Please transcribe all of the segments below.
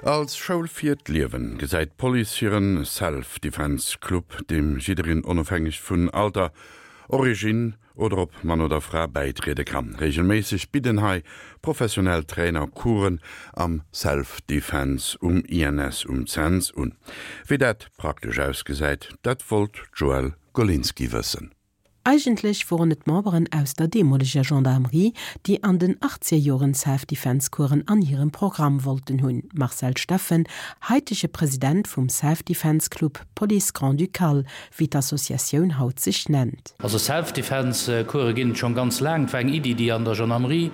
Als Schoul fir d'Liewen gesäit d'Police hiren Self-Defense Club, deem jiddereen onofhängeg vun Alter, Originn oder ob Mann oder Fra bäitriede kann. Reegelméisseg bidden hei professionell Trainer Coursen am Self-Defense um INS um Cents un. Wéi dat praktesch ausgesäit, dat wollt d'Joëlle Golinski wëssen. Eigentlech woren et Memberen aus der deemoleger Gendarmerie, déi an den Achtzegerjoren Self-Defense-Coursen an hirem Programm wollten hunn. Marcel Steffen, haitege President vum Self-Defense Club Police Grand-Ducale, wéi d'Associatioun haut sech nennt. Also Self-Defense-Course ginn et schonn ganz laang. Et war eng Iddi, déi an der Gendarmerie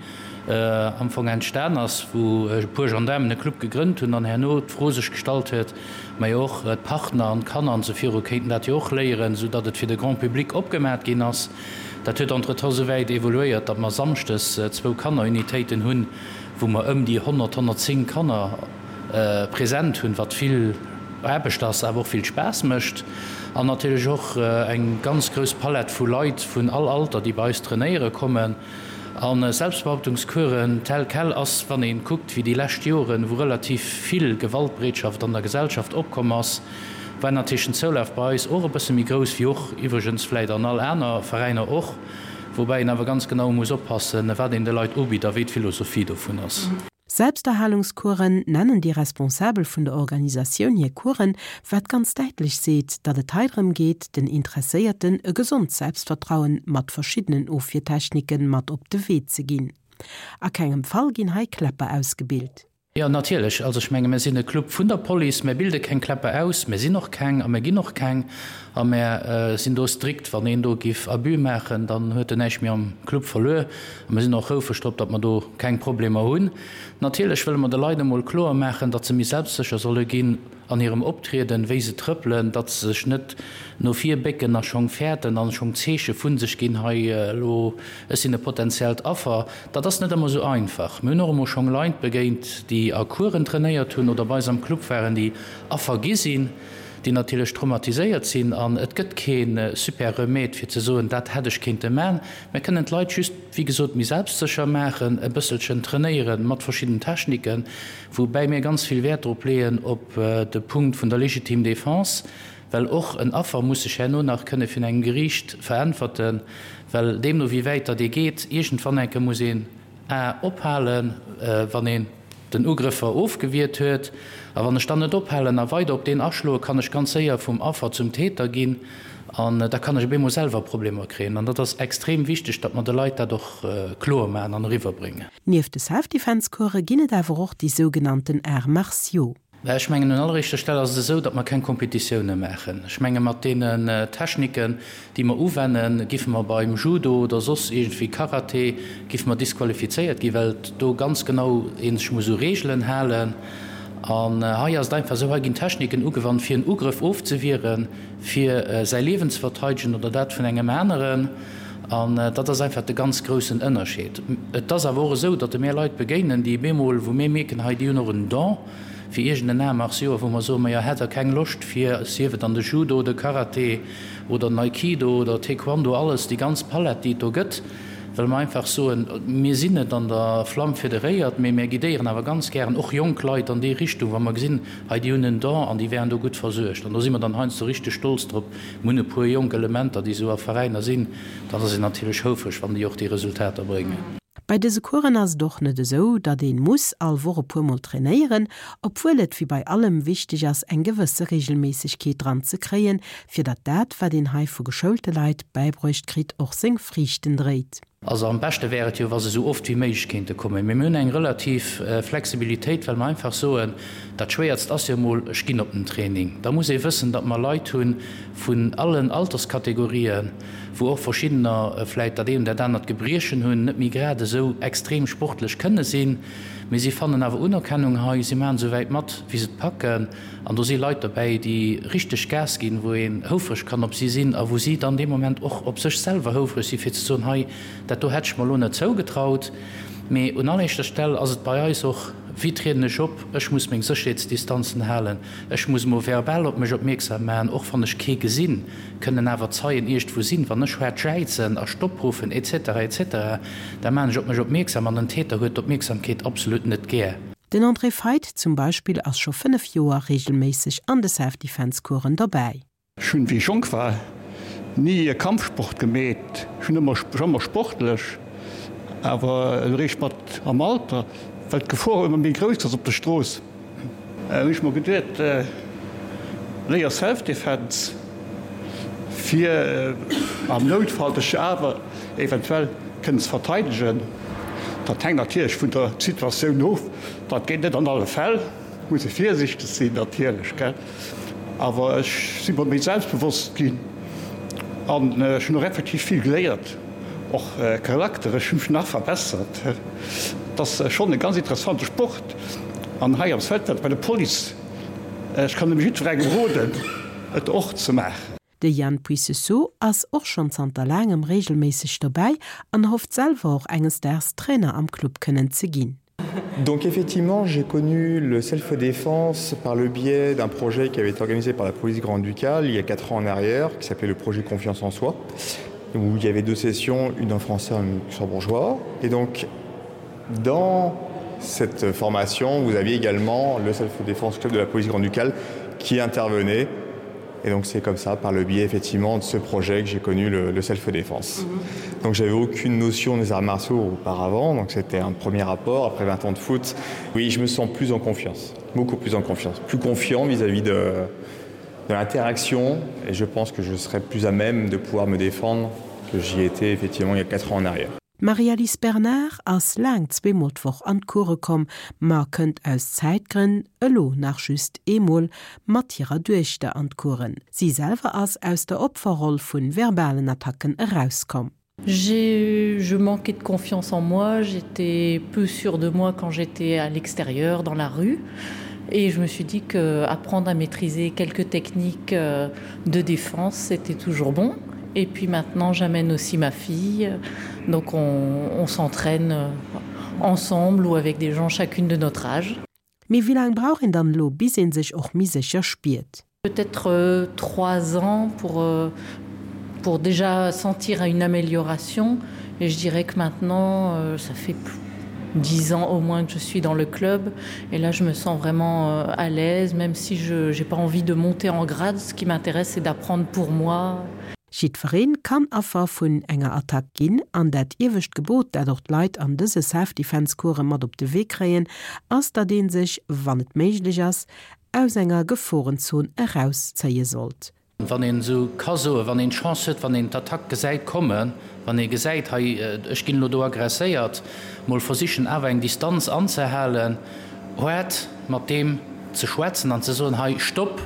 am Fong entstan ass, wou e puer Gendaarmen e Club gegrënnt hunn an herno d'Fro sech gestallt huet, Mä och d'Partner an d'Kanner an esou viru kéinten dat jo och léieren, esou datt et fir de Grand public opgemat ginn ass. Dat huet entretemps esou wäit evoluéiert, datt mer samschdes zwou Kannerunitéiten hunn, wou mer ëm déi 100, 110 Kanner present hunn, wat vill Aarbecht ass, awer och vill Spaass mécht. An natierlech och eng ganz grouss Palett vu Leit vun all Alter, déi bei eis trainéiere kommen. A Selbstbehauptungskuren tel quel ass, wann ee kuckt, wéi déi lescht Joren, wou relativ vill Gewaltbereetschaft an der Gesellschaft opkomm ass, war natierlech den Zoulaf bei eis och e bësse méi grouss, wéi och iwwregens vläit an all aner Veräiner och, woubäi een awer ganz genau muss oppassen, wat een de Leit ubitt a wéi d'Philosophie dovun ass. Selbsterhalungscoursen nennen déi Responsabel vun der Organisatioun hir Coursen, wat ganz däitlech seet, datt et hei drëm geet, den Interesséierten e gesond Selbstvertrauen mat verschiddenen Ofwiertechniken mat op de Wee ze ginn. A kengem Fall ginn hei Kläpper ausgebilt. Jo, natierlech. Also ech menge mir sinn e Club vun der Police, mir bilde keng Kläpper aus, mir sinn och keng a mir ginn och keng a mir sinn do strikt. Wann een do giff Abus maachen, dann huet en näischt méi am Club verluer. A mir sinn och houfreg drop, datt mer do keng Problemer hunn. Natierlech wëlle mer de Leit emol kloer maachen, datt se méi selbstsécher solle ginn an hirem Optrieden, wéi se trëppelen, datt se sech net no vir bécken a schong fäerten an schong Zeeche vu sech ginn, hei elo, ech sinn e potenziellt Affer. Dat ass net ëmmer esou einfach. Mir hunn och emol schong Leit begéint, déi a Coursen trainéiert hunn oder bei eis am Club waren, déi Affer gi sinn, déi natierlech traumatiséiert sinn. An et gëtt kee super Remède fir ze soen, dat hätt ech kéinte man. Mir kënnen d'Leit just, wéi gesot, méi selbstsécher maachen, e bësselchen trainéieren mat verschidden Techniken, woubäi mir ganz vill Wäert drop leeën op de Punkt vun der légitime défense, well och en Affer muss sech herno nach kënne virun engem Geriicht veräntwerten, well deemno wéi wäit datt ee geet, iergendwann enke muss een A ophalen, wann een den Ugrëffer ofgewiert huet. A wann ech dann net ophalen a weider op deen aschloen, kann ech ganz séier vum Affer zum Täter ginn an da kann ech op eemol selwer Problemer kréien. An dat ass extrem wichteg, datt mer de Leit dat och kloer maachen an eriwwerbréngen. Nieft de Self-Defense-Course ginn et awer och déi sougenannten Arts martiaux. Mä ech mengen, un alleréischter Stell ass et esou, datt mer keng Kompetitioune maachen. Ech menge mat deenen Techniken, déi mer uwennen, giffe mer beim Judo oder soss iergendwéi Karate, giffe mer disqualifizéiert ginn, well do ganz genau ee sech muss u Reegelen halen. An hei ass et einfach esou, hei ginn Techniken ugewannt, fir en Ugrëff ofzewieren, fir säi Liewen ze verteidegen oder dat vun engem aneren. An dat ass einfach de ganz groussen Ënnerscheed. Et ass awer och esou, datt e mir Leit begéinen, déi bemol, wou mir mierken, hei déi hunn och en Don, fir iergend en Art martiaux, wou mer soen, majo, hätt Der keng Loscht fir, sief et an de Judo, de Karate oder den Aikido oder Taekwondo, alles, déi ganz Palett, déi et do gëtt, well mer einfach soen, mir sinn net an der Flamm federéiert, mee mir guidéieren awer ganz gären och jonk Leit an déi Richtung, wa mer gesinn, hei déi hunn en Don an déi wären do gutt versuergt. An do si mer dann heiansdo richteg stolz drop. Mir hunn e puer jonk Elementer, déi esou a Veräiner sinn, dann ass een natierlech houfreg, wann déi och déi Resultater bréngen. Bei dëse Coursen ass et och net esou, datt een muss all Woch e puer mol trainéieren, obwuel et wéi bei allem wichteg ass eng gewësse Regelméissegkeet dran ze kréien, fir datt dat wat een hei vu geschoulte Leit bäibruecht kritt och seng Friichten dréit. Also am beschte wär et jo, wa se esou oft wéi méiglech kéinte kommen. Mee mir hunn eng relativ Flexibilitéit, well mer einfach soen, dat Schwéiertst ass jo emol, ech ginn op den Training. Da muss ee wëssen, datt mer Leit hu vun allen Alterskategorien, wou och verschiddener vläit dat eent oder dat anert Gebriechen hunn, net méi grad esou extrem sportlech kënne sinn, mee si fannen awer Unerkennung hei, si maachen esou wäit mat, wéi se et packen. An do si Leit dobäi, déi richteg Gas ginn, wou een houfreg kann op si sinn a wou si dann dee Moment och op sech selwer houfreg sinn, fir ze soen, hei, dat do hätt ech mer elo net zougetraut. Mee un alleréischter Stell ass et bei eis och, wéi trieden ech op, ech muss meng Sécherheetsdistanzen halen, ech muss emol verbal op mech opmierksam maachen, och wann ech kee gesinn. kënnen awer Zeien iergdwou sinn, wann ech haart jäizen a Stopp ruffen etc. Etc. Da maan ech op mech opmierksam an den Täter huet d'Opmierksamkeet absolut net gär. Den André Feidt zum Beispill ass scho 5 Joer reegelméisseg an de Self-Defense-Coursen dobäi. Ech hunn, wéi ech jonk war, ni e Kampfsport gemeet. Ech hunn ëmmer, ech war ëmmer sportlech, awer eréischt mat am Alter, well d'Gefor ëmmer méi grouss ass op der Strooss, hunn ech mer geduet, léier Self-Defense, fir am Noutfall dech awer eventuell kënnen ze verteidegen. Dat hänkt natierlech vun der Situatioun of, dat geet net an alle Fäll. Muss ee virsichteg sinn natierlech, gell, awer ech si mer méi selbstbewosst ginn an ech hunn och effektiv vill geléiert, och charakterlech, ech hu mech nach verbessert. Et ass schonn e ganz interessante Sport an hei am Selfdefense bei der Police, ech kann nëmme jiddwerengem roden, et och ze maachen. De Yann Puissesseau ass och schonn zanter laangem reegelméisseg dobäi an hofft selwer och enges Daags Trainer am Club kënnen ze ginn. Donc effectivement, j'ai connu le self-défense par le biais d'un projet qui avait été organisé par la police grand-ducale il y a quatre ans en arrière, qui s'appelait le projet confiance en soi, où il y avait deux sessions, une en français et une luxembourgeois. Et donc dans cette formation, vous aviez également le self-défense club de la police grand-ducale qui intervenait Et donc c'est comme ça, par le biais effectivement de ce projet que j'ai connu le, le self-défense. Mm -hmm. Donc j'avais aucune notion des arts martiaux auparavant, donc c'était un premier rapport après 20 ans de foot. Oui, je me sens plus en confiance, beaucoup plus en confiance, plus confiant vis-à-vis -vis de, de l'interaction et je pense que je serais plus à même de pouvoir me défendre que j'y étais effectivement il y a 4 ans en arrière. D'Marie-Alice Bernard ass laang zweemol d'Woch an d'Course komm, ma kënnt aus Zäitgrënn elo nach just eemol mat hirer Duechter an d'Coursen. Si selwer ass aus der Opferroll vu verbalen Attacken erauskomm. J'ai je manquais de confiance en moi, j'étais peu sûre de moi quand j'étais à l'extérieur, dans la rue et je me suis dit que apprendre à maîtriser quelques techniques euh, de défense, c'était toujours bon. Et puis maintenant j'amène aussi ma fille, donc on, on s'entraîne euh, ensemble ou avec des gens chacune de notre âge. Mee wéi laang brauch een dann elo bis een sech och méi sécher spiert? Peut-être euh, 3 ans pour, euh, pour déjà sentir une amélioration et je dirais que maintenant euh, ça fait plus 10 ans au moins que je suis dans le club et là je me sens vraiment euh, à l'aise même si je n'ai pas envie de monter en grade ce qui m'intéresse c'est d'apprendre pour moi. Jiddwereen kann Affer vun enger Attack ginn an dat iewescht Gebot, dat och d'Leit an dëse Self-Defense-Course mat op de Wee kréien, ass, datt ee sech, wann et méiglech ass, aus enger Geforenzon erauszéie sollt. Wann een esou ka soen, wann een d'Chance huet, wann een d'Attack gesäit kommen, wann ee gesäit, hei, ech ginn elo do agresséiert, mol versichen awer eng Distanz anzehalen, haart mat deem ze schwätzen an ze soen, hei, Stopp,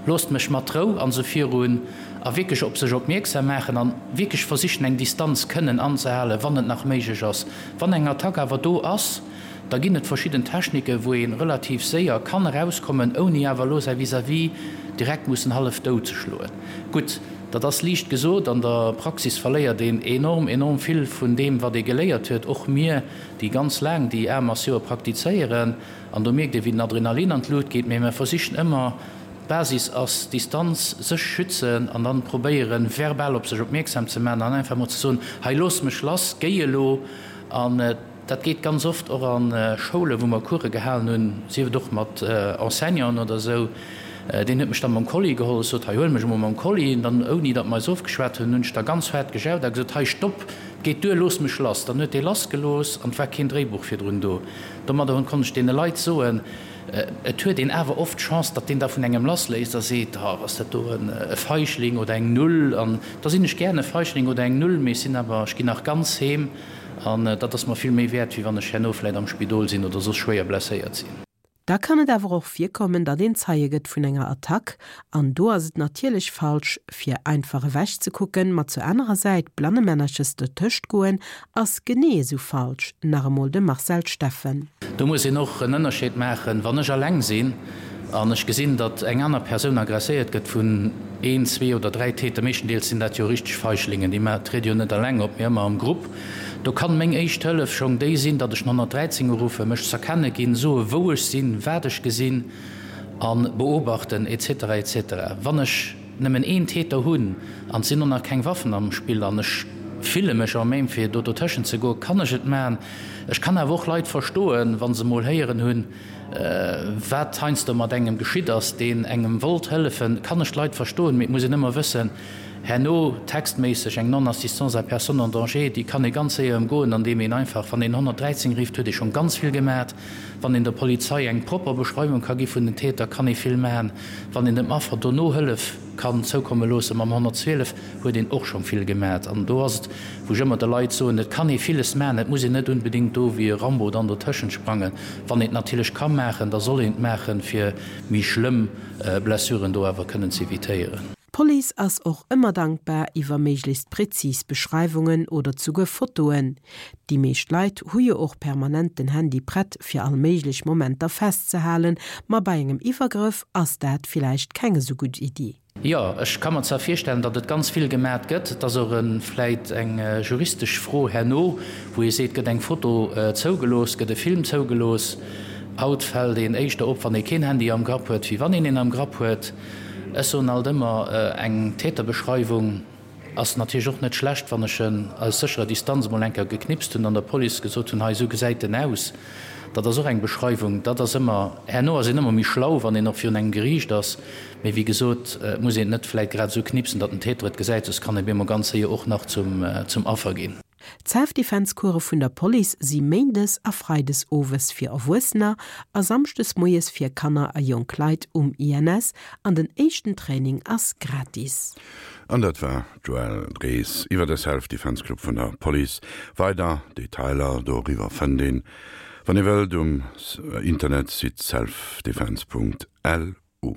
loosst mech mat Rou an esou virun, a wierklech op sech opmierksam maachen an wierklech versichen eng Distanz kënnen anzehalen, wann et nach méiglech ass. Wann eng Attack awer do ass, Da ginn et verschidden Techniken, wou ee relativ séier kann erauskommen, ouni awer elo säi Vis-à-vis direkt mussen hallef dout ze schloen. Gutt, dat ass liicht gesot, an der Praxis verléiert een enorm, enorm vill vun deem, wat ee geléiert huet, och mir, déi ganz laang déi Arts martiaux praktizéieren. An do mierkt ee wéi den Adrenalin an d'Lut geet. Mee mir versichen ëmmer, d'Basis ass Distanz, sech schützen an dann probéieren, verbal op sech opmierksam ze maachen an einfach emol ze soen, hei looss mech lass, géi elo. An dat geet ganz oft och a Schoulen, wou mer Course gehalen hunn, sief et och mat Enseignanten oder esou. Deen huet mech da mam Kolli geholl. Ech sot, hei huel mech emol mam Kolli. An dann, ouni datt mer eis ofgeschwat hunn, hunn ech da ganz haart gejaut a gesot, hei stopp, et geet duer, looss mech lass. Dann huet dee lassgelooss an et war keen Dréibuch virdrun do. Domadder hunn konnt ech deene Leit soen, et huet een awer oft d'Chance, datt deen da vun engem lassléisst a seet, oh, ass dat do e Feichling oder eng Null. An da sinn ech gären e Feichling oder eng Null, mee ech sinn awer, ech ginn nach ganz heem. An dat ass mer vill méi wäert, wéi wann ech herno vläit am Spidol sinn oder soss schwéier blesséiert sinn. Da kann et awer och virkommen, datt een Zeie gëtt vun enger Attack. An do ass et natierlech falsch, fir einfach ewech ze kucken, ma zur anerer Säit blannemännerches dertëscht goen, ass genee esou falsch. Nach emol de Marcel Steffen. Do muss een och en Ënnerscheed maachen, Wann ech alleng sinn an ech gesinn, datt eng aner Persoun agresséiert gëtt vun een, zwee oder dräi Täter, meeschtendeels sinn dat jo richteg Feiglingen, déi triede jo net alleng op, mee ëmmer am Grupp, do kann meng éischt Hëllef schonn déi sinn, datt ech den 113 uruffen, mech z'erkenne ginn, soe wou ech sinn, wat ech gesinn a beobachten et cetera et cetera. Wann ech nëmmen een Täter hunn an et sinn och nach keng Waffen am Spill an ech fille mech en même fir do dotëschent ze goen, kann ech et maachen. Ech kann awer och Leit verstoen, wa se mol héieren hunn, wat heiansdo mat engem geschitt ass, deen engem wollt hëllefen, kann ech d'Leit verstoen. Mee et muss een ëmmer wëssen, herno textméisseg eng Non-assistance à personne en danger, déi kann ee ganz séier ëmgoen, andeem een einfach, wann een 113 rifft, huet ee schonn ganz vill gemat. Wann een der Polizei eng propper Beschreiwung ka gi vun den Täter, kann ee vill man. Wann een dem Affer dono Hëllef kann zoukomme loosse mam 112, huet een och schonn vill gemat. An do ass et, wou ech ëmmer de Leit soen, et kann ee villes maachen, et muss een net unbedéngt do wéi e Rambo dann dotëschent sprangen. Wann een et natierlech ka maachen, da soll een et maachen, fir méi schlëmm Blessuren do awer kënnen z'evitéieren. D'Police ass och ëmmer dankbar iwwer méiglechst präzis Beschreiwungen oder zuguer Fotoen. Déi meescht Leit hu jo och permanent den Handy prett fir all méiglech Momenter festzehalen, ma bei engem Iwwergrëff ass dat villäicht keng esou gutt Iddi. Jo, ech ka mer zwar virstellen, datt et ganz vill gemat gëtt. Et ass och vläit eng juristesch Fro herno, wou ee seet, gëtt eng Foto zougelooss, gëtt e Film zougelooss. Haut fält een éischter op, wann ee keen Handy am Grapp huet, wéi wann een een am Grapp huet. Ech soen alt ëmmer, eng Täterbeschreiwung Ass natierlech och net schlecht, wann ech en aus sécherer Distanz emol eng Kéier geknipst hunn an der Police gesot hunn, hei esou gesäit en aus. Dat ass och eng Beschreiwung. Dat ass ëmmer, herno ass een ëmmer méi schlau, wann een och virun engem Geriicht ass. Mee wéi gesot, et muss een et net vläit grad esou knipsen, datt den Täter et gesäit, soss kann e bemol ganz séier och nach zum Affer ginn. D'Self-Defense-Course vun der Police si méindes a freides owes fir Erwuessener a samschdes moies fir Kanner a jonk Leit um INS an den éischten Training ass gratis. An dat war d'Joëlle Drees iwwer de Self-Defense Club vun der Police. Weider Detailer doriwwer fënnt een, wann ee wëllt, um Internetsite selfdefense.lu.